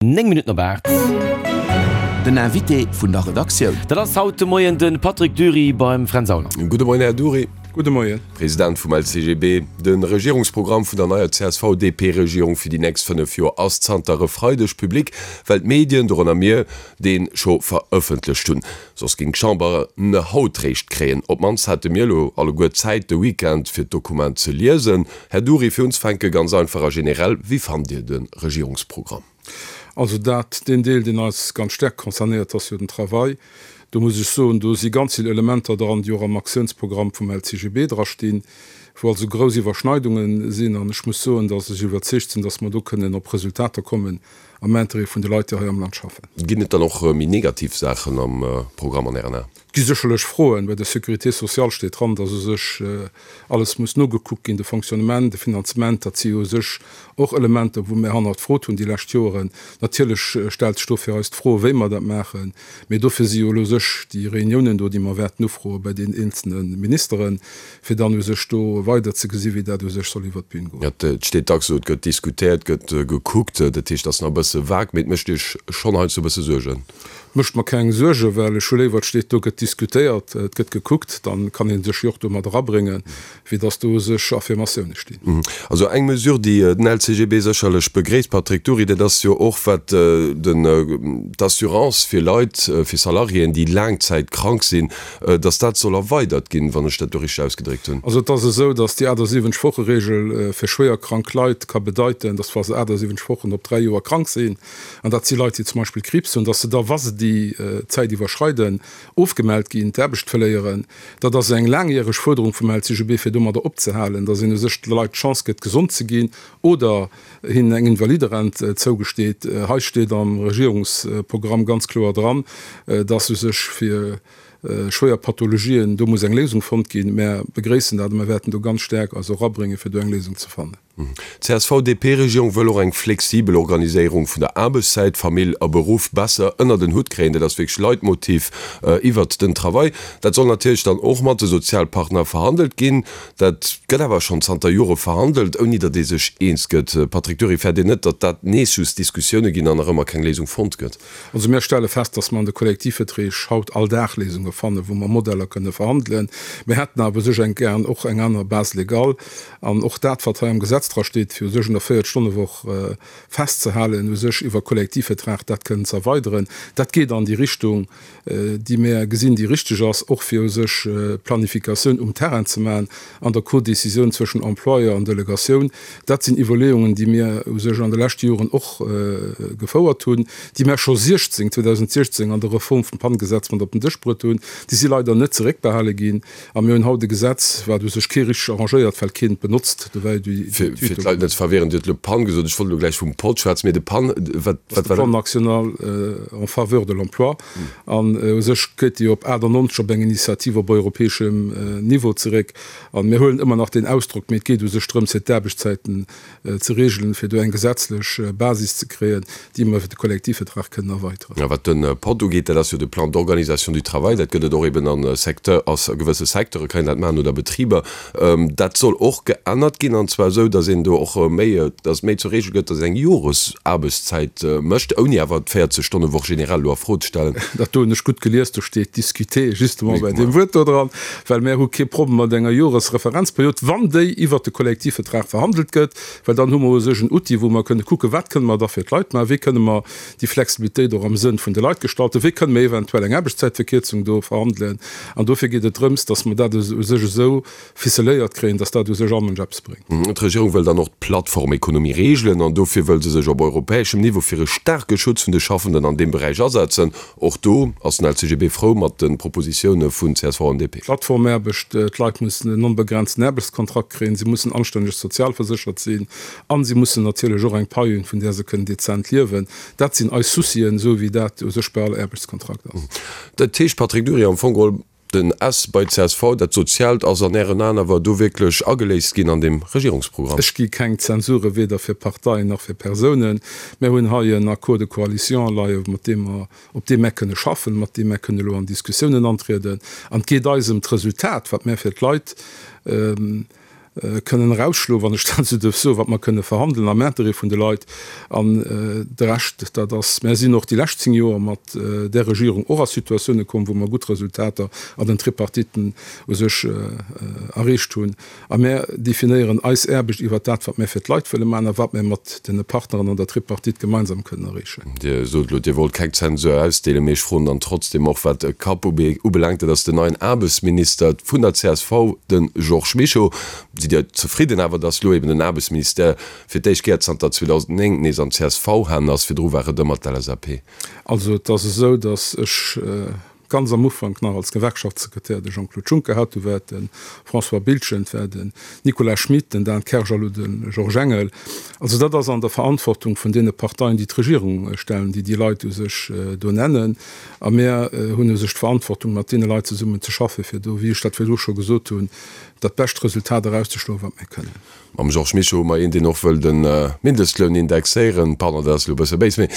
9 Minutten op 8. Den Invité vun der Redaktioun. Dat ass haut de Moien de Patrick Dury beim Fränz Aulner. Gudde Moien, Här Dury. Gudde Moien. President vum LCGB. De Regierungsprogramm vun der neier CSV-DP-Regierung fir déi nächst 5 Joer ass zanter e Freideg public, well d'Medien, dorënner mir, dee scho verëffentlecht hunn. Soss géing d'Chamber en haut réischt kréien. Op d'mannst hate mir elo alleguer Zäit de Weekend fir d'Dokument ze liesen. Här Dury, fir unzefänke ganz einfach a generell, Wéi fannt Dir de Regierungsprogramm? Also dat, deen Deel, deen eis ganz staark concernéiert, ass jo den Travail. Do muss ech soen, do si ganz vill Elementer dran, déi och am Aktiounsprogramm vum LCGB drastinn, wou also grouss Iwwerschneidunge sinn. An ech muss soen, datt ech iwwerzeegt sinn, datt mer do kënnen op Resultater kommen am Intérêt vun de Leit, déi hei am Land schaffen. Ginn et dann och méi negativ Saachen am Programm an Ären Aen? Et gi sécherlech Froen. Bei der Sécurité sociale steet dran, datt u sech alles muss nogekuckt ginn, de Fonctionnement, de Finanzement. Dat si jo u sech och Elementer, wou mir hannerfrot hunn déi lescht Joren. Natierlech stellt sech do fir eis d'Fro, wéi mer dat maachen. Mee dofir si jo elo u sech déi Reuniounen do, déi mer wäerten ufroe bei deenen eenzelne Ministeren, fir dann u sech do weider ze gesi wéi dat u sech soll iwwert d'Bün goen. Et steet dacks esou, et gëtt diskutéiert, et gëtt gekuckt, dat heescht, et ass nach e bësse vag, mee et mécht Iech schonn heiansdo e bësse Suergen? Et mécht mer keng Suergen, well ech hu léiwer, et steet do, gëtt diskutéiert, et gëtt gekuckt, dann kann ee sech jo och do mat erabréngen, wéi datt do u sech Affirmatioune stinn. Also eng Mesure, déi den LCGB sécherlech begréisst, Patrick Dury, dat ass jo och wat den d'Assurance fir Leit, fir Salariéen, déi laangzäitkrank sinn, Dass dat soll erweidert ginn, wann ech dat do richteg ausgedréckt hunn. Also et ass esou, dass déi 78 Woche-Regel fir schwéier krank Leit ka bedeiten, dass wa se 78 Wochen op 3 Joer krank sinn, an dat si Leit, déi zum Beispill Kriibs hunn, dass se da, wa se déi Zäit iwwerschreiden, ofgemellt ginn, d'Aarbecht verléieren. Dat ass eng laangjäreg Fuerderung vum LCGB, fir domadder opzehalen, dass een u sech de Leit d'Chance gëtt, gesond ze ginn oder hinnen eng Invaliderent zougesteet. Hei steet am Regierungsprogramm ganz kloer dran, dass u sech fir schwéier Pathologien do muss eng Léisung fonnt ginn. Mär begréissen dat a mär wäerten do ganz staark eis och abréngen, fir do eng Léisung ze fannen. D'CSV-DP-Regierung wëll och eng flexibel Organiséierung vun der Aarbechtszäit, Famill a Beruff besser ënnert en Hutt kréien. Dat ass wierklech Leitmotiv iwwert den Travail. Dat soll natierlech dann och mat de Sozialpartner verhandelt ginn. Dat gëtt awer schonn zanter Jore verhandelt, ouni datt ee sech eens gëtt. Patrick Dury, fäert Dir net, datt dat nees just Diskussioune ginn an nach ëmmer keng Léisung fonnt gëtt? Also mir stelle fest, datt mer an de Kollektivverträg haut all Dag Léisunge fannen, wou mer Modeller kënne verhandelen. Mir hätten awer u sech eng gären och eng aner Base légale. An och dat, wat hei am Gesetz dra steet, fir u sech un der Véiertstonnewoch festzehalen, u sech iwwer Kollektivvertrag dat kënnen ze erweideren, dat geet an déi Richtung, déi mär gesinn, déi richteg ass, och fir u sech d'Planifikatioun um Terrain ze maachen an der Codécisioun zwëschen Employeur an Delegatioun. Dat sinn Iwwerleeungen, déi mir u sech an de leschte Joren och gefouert hunn, déi mär scho 16, 2016 an der Reform vum PAN-Gesetz mat op den Dësch bruet hunn. Déi si leider net zeréckbehale ginn. A mir hunn haut e Gesetz, wat u sech kee richteg arrangéiert, well keen et benotzt. Do war jo déi Fir d'Leit net ze verwirren, Dir hutt elo PAN gesot, ech wollt elo gläich vum pod schwätzen, mee de PAN, wat war dat? Plan national en faveur de l'emploi. An u sech geet déi op 98 op eng Initiativ op europäeschem Niveau zeréck. A mir huelen ëmmer nach deen Ausdrock, mee et geet u sech drëms, fir d'Aarbechtszäiten ze regelen, fir do eng gesetzlech Basis ze kréien, déi mer iwwer de Kollektivvertrag kënnen erweiteren. A wat de pod ugeet, dat ass jo de Plan d'organisation du travail, dat gëtt et och eben a Secteur, a gewësse Secteure kann een dat maachen oder Betriber. Dat soll och geännert ginn, an zwar esou, datt een do och méi, datt et méi zur Regel gëtt, datt een eng Joresaarbechtszäit mécht, ouni awer d'Véierzeg-Stonne-Woch generell elo a Fro ze stellen. Dat do hunn ech gutt gelies, do steet discuter justement bei deem Wuert do dran. Well mär hu kee Problem mat enger Joresreferenzperiod, wann déi iwwert de Kollektivvertrag verhandelt gëtt, well dann hu mer u sech en Outil, wou mer kënne kucken, wat kënne mer da fir d'Leit maachen, wéi kënne mer déi Flexibilitéit och am Sënn vun de Leit gestalten, wéi kënne mer eventuell eng Aarbechtszäitverkierzung do verhandelen. An dofir geet et drëms, dass mer dat u sech esou ficeléiert kréien, dass dat u sech all Mënsch eppes bréngt. D'Regierung wëll dann och d'Plattformekonomie reegelen an dofir wëll se sech op europäeschem Niveau fir e staarke Schutz vun de Schaffenden an deem Beräich asetzen. Och do ass den LCGB frou mat de Propositioune vun csv an DP. Plattformaarbecht, D'Leit mussen en onbegrenzten Aarbechtskontrakt kréien, si mussen anstänneg sozialverséchert sinn a si mussen natierlech och eng Pai hunn, vun där se kënnen dezent liewen. Dat sinn eis Soucien, esou wéi dat u sech bei all Aarbechtskontrakt ass. Dat heescht, Patrick Dury, am Fong geholl, Den S bei csv, dat Soziaalt ass an Ären Aen awer do wierklech ageléist ginn an deem Regierungsprogramm? Ech gi keng Zensure weder fir Parteien nach fir Persounen. Mär hunn hei en Accord de coalition leie mat deem mer, op deem mär kënne schaffen, mat deem mär kënne elo an Diskussiounen antrieden. An et geet eis ëm d'Resultat, wat mär fir d'Leit. kënnen erausschloen, wann ech dat esou duerf soen, wat mer kënne verhandelen am Interêt vun de Leit. An de Rescht, dat ass, mär sinn och déi lescht 10 Joer mat där Regierung och a Situatioune komm, wou mer gutt Resultater an den Tripartiten u sech erreecht hunn. A mär definéieren eis Aarbecht iwwert dat, wat mär fir d'Leit wëlle maachen a wat mär mat de Partneren an der Tripartite gemeinsam kënnen erreechen. Dir sot elo, Dir wollt keng Zensur ausdeelen, mee ech froen dann trotzdem och, wat e Kapp ubelaangt, dat ass den neien Aarbechtsminister vun der csv, de Georges Mischo. Sidd Dir zefridden awer, datt elo eben den Aarbechtsministère fir d'éischt Kéier zanter 2009 nees an CSV-Hänn ass? Virdru war et ëmmer d'LSAP. Also et ass esou, datt ech ganz am Ufank nach als Gewerkschaftssekretär de Jean-Claude Juncker hat, du war et de François Biltgen, et war den Nicolas Schmit, den Dan Kersch a lo de Georges Engel. Also dat ass an der Verantwortung vun deene Parteien, déi d'Regierung stellen, déi déi Leit u sech do nennen. A mär hunn u sech d'Verantwortung, mat deene Leit zesummen ze schaffen, fir do, wéi ech dat virdru scho gesot hunn, dat bescht Resultat erauszeschloen, wat mir kënnen. Mam Georges Mischo hu mer een, deen och wëll de Mindestloun indexéieren. Pardon, dat ass elo e bësse béis, mee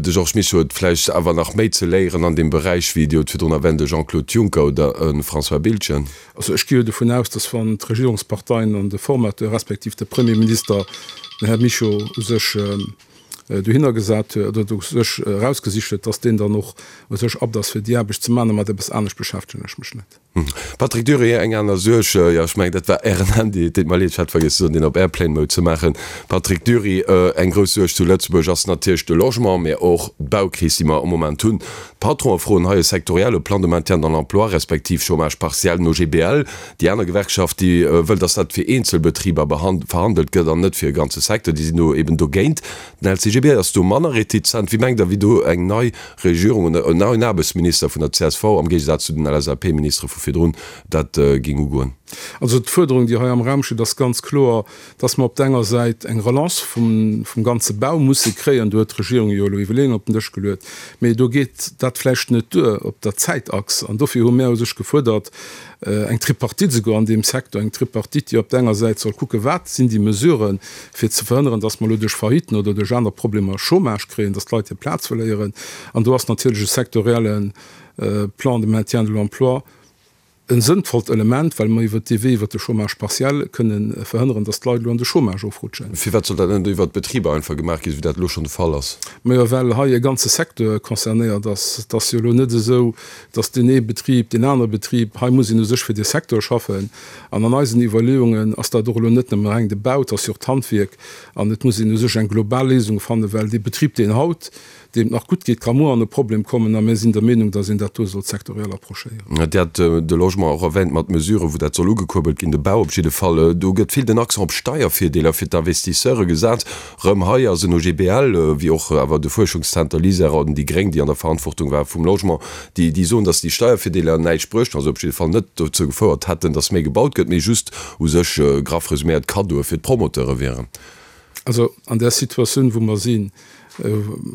de Georges Mischo huet vläicht awer nach méi ze léieren an deem Beräich wéi, Dir hutt virdrun erwänt, e Jean-Claude Juncker oder e François Biltgen. Also ech gi jo dovun aus, datt wann d'Regierungsparteien an de Formateur respektiv de Premierminister den Här Mischo u sech dohinner gesat huet oder u sech erausgesicht huet, datt deen dann och u sech apt ass fir déi Aarbecht ze maachen. A mat eppes anescht beschäftegen ech mech net. Patrick Dury, Eng aner Suerg, jo ech mengen dat war Ären Handy, et deet mer leed, ech hat vergiess ze soen deen op Airplane Mode ze maachen. Patrick Dury, Eng grouss Suerg zu Lëtzebuerg ass natierlech de Logement, mä och d'Baukris déi mer am Moment hunn. D'Patronen froen hei e sektorielle Plan de maintien dans l'emploi, respektiv Chômage partiel no GBL. Déi aner Gewerkschaft déi wëll, datt dat fir eenzel Betriber verhandelt gëtt an net fir e ganze Secteur, déi sinn do eben dogéint. Den LCGB ass do manner retizent. Wéi mengt Der, wéi do eng nei Regierung oder en neien Aarbechtsminister vun der csv, am Géigesaz zu den LSAP-Ministere vu virdrun, dat géing ugoen? Also d'Fuerderung, déi hei am Raum steet, ass ganz kloer, dass mer op der enger Säit eng Relance vum ganze Bau musse kréien. Do huet d'Regierung jo elo Iwwerleeungen op den Dësch geluet. Mee do geet dat vläicht net duer op der Zäitachs. An dofir hu mär u sech gefuerdert, eng Tripartite esouguer an deem Secteur, eng Tripartite, déi op der enger Säit soll kucken, wat sinn déi Mesuren, fir ze verhënneren, dass mer elo duerch Failliten oder duerch aner Problemer Chômage kréien, dass d'Leit hir Plaz verléieren. An do ass natierlech e sektorielle Plan de maintien de l'emploi e sënnvollt Element, well mer iwwert dee Wee, iwwert de Chômage partiel, kënnen verhënneren, dass d'Leit elo an de Chômage ofrutschen. Firwat soll dat net iwwert d'Betriber einfach gemaach ginn, esou wéi dat elo schonn de Fall ass? Majo, well hei e ganze Secteur concernéiert ass. Et ass jo elo net esou, dass deen ee Betrib, deen anere Betrib, hei muss een u sech fir dee Secteur schaffen. An an eisen Iwwerleeungen ass dat och elo net nëmme reng de Bau, et ass jo och d'Handwierk. An et muss een u sech eng global Léisung fannen, well dee Betrib, deen haut, deem et nach gutt geet, ka muer an e Problem kommen. A mir sinn der Meenung, dass een dat do sollt sektoriell approchéieren. Dir hat de Logement och erwähnt mat Mesuren, wou dat soll ugekuerbelt ginn, de Bau op jidde Fall. Do gëtt vill den Accent op Steiervirdeeler fir d'Investisseure gesat. Rëm hei ass en OGBL, wéi och awer de Fuerschungszenter LISER an déi Gréng, déi an der Verantwortung ware vum Logement, déi déi soen, datt déi Steiervirdeeler näischt bruecht hunn, also op jidde Fall net dozou gefouert hätten, datt méi gebaut gëtt, mee just u sech, graff resuméiert, Kaddoe fir d'Promoteure wieren. Also an där Situatioun, wou mer sinn,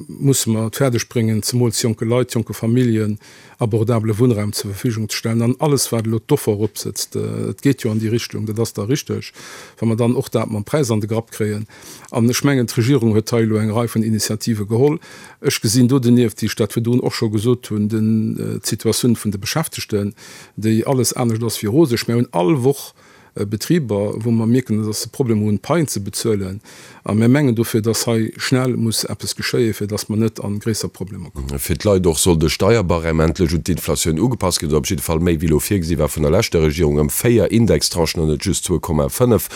musse mer et fäerdeg bréngen, zemools jonke Leit, jonke Familljen abordabele Wunnraum zur Verfügung ze stellen. An alles, wat elo d'Offer eropsëtzt, et geet jo an déi Richtung, dat ass da richteg, wa mer dann och dat mam Präis an de Grapp kréien. An ech mengen, d'Regierung huet hei elo eng Rei vun Initiative geholl. Ech gesinn do donieft, wéi ech dat virdrun och scho gesot hunn, d'Situatioun vun de Beschäftegten, déi alles anescht ass wéi roseg. Mir hunn all Woch Betriber, wou mer mierken, dass se Problemer hunn, d'Paien ze bezuelen. A mir mengen dofir, dass hei schnell muss eppes geschéien, fir dass mer net a gréisser Problemer kommen. Fir d'Leit och soll de Steierbarème endlech un d'Inflatioun ugepasst ginn, oder op jidde Fall méi wéi elo virgesi war vun der leschter Regierung, ëm 4 Indextranchen an net just 2,5.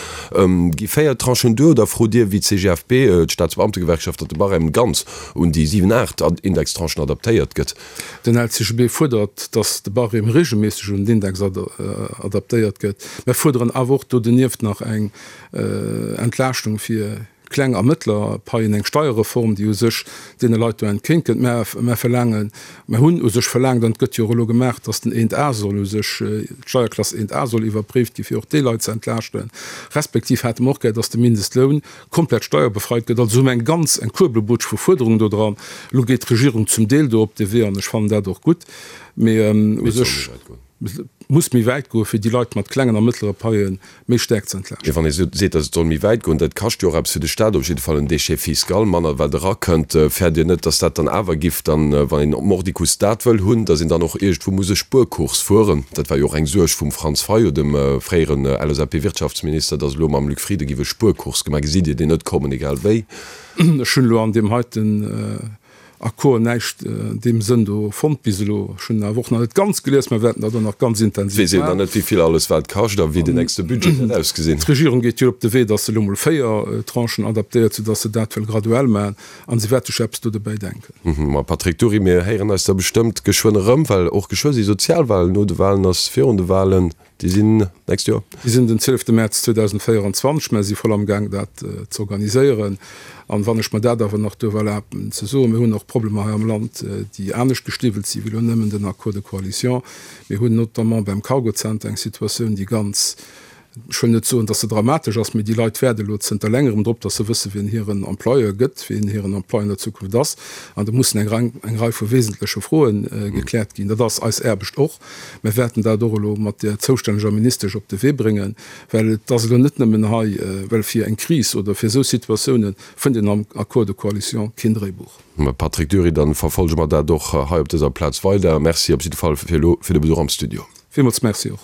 Gi 4 Tranchen duer oder frot Dir wéi d'CGFP, d'Staatsbeamtegewerkschaft, datt de Barème ganz un déi 7, 8 Indextranchen adaptéiert gëtt? Den LCGB fuerdert, datt de Barème reegelméisseg un den Index adaptéiert gëtt. Mär fuerderen awer och do donieft nach eng Entlaaschtung fir kleng a mëttler Paien, eng Steierreform, déi u sech deene Leit do entgéint kënnt. Mär verlaangen, mär hunn u sech verlaangt, an et gëtt jo och elo gemaach, datt den 1 A soll u sech, d'Steierklass 1 A soll iwwerpréift gi fir och déi Leit ze entlaaschten. Respektiv hätte mer och gär, datt de Mindestloun komplett steierbefreit gëtt. Also hu mer eng ganz, eng Kuerbelbutsch vu Fuerderungen do dran. Elo geet d'Regierung zum Deel do op dee Wee an ech fannen dat och gutt. Mee u sech. Et muss méi wäit goen, fir déi Leit mat klengen a mëttlere Paie méi staark ze entlaaschten. Mee wann ee seet, datt et soll méi wäit goen, dat kascht jo och eppes fir de Staat, op jidde Fall en Déchet fiscal, manner wat erakënnt. Fäert Dir net, datt dat dann awer giff dann, wann een mordicus dat wëll hunn, datt een dann och iergendwou muss e Spuerkurs fueren? Dat war jo och eng Suerg vum Franz Fayot, dem fréieren LSAP-Wirtschaftsminister, datt elo mam Luc Frieden giff e Spuerkurs gemaach. Gesitt Dir deen net kommen, egal wéi? Ech hunn elo an deem heiten Accord näischt an deem Sënn do fonnt bis elo. Ech hunn en awer och nach net ganz gelies, mer wäerten dat och nach ganz intensiv Weess een nach net, wéi vill alles wat kascht a wéi den nächste Budget wäert ausgesinn. D'Regierung geet jo op de Wee, datt se elo mol 4 Tranchen adaptéiert, soudatt se dat wëll graduell maachen a se wäert sech eppes do dobäi denken. Ma Patrick Dury, mir héieren eis da bestëmmt geschwënn erëm, well och geschwë si Sozialwahlen. No de Wahlen ass virun de Wahlen. Déi sinn d'nächst Joer? Déi sinn den 12 Mäerz 2024. Mer si voll am Gaang dat ze organiséieren. An wann ech mer dat awer nach duerf erlaben ze soen, mir hunn och Problemer hei am Land, déi anescht gestiwwelt si wéi elo nëmmen den Accord de coalition. Mir hunn notamment beim Cargo-Center eng Situatioun, déi ganz, ech wëll net soen, dass se dramatesch ass, mee déi Leit waarde elo zënter längerem drop, dass se wëssen, wien hiren Employeur gëtt, wien hiren Employeur an der Zukunft ass. An do mussen eng Rei vu wesentleche Froe gekläert ginn. Dat ass eis Aarbecht och. Mir wäerten dat och elo mat där zoustänneger Ministesch op de Wee bréngen, well et ass elo net nëmmen hei, well fir eng Kris oder fir esou Situatiounen fënnt een am Accord de coalition keen Dréibuch. Mme Patrick Dury, Dann verfolge mer dat och hei op dëser Plaz weider. Merci op jidde Fall fir elo fir de Besuch am Studio. Villmools Merci och.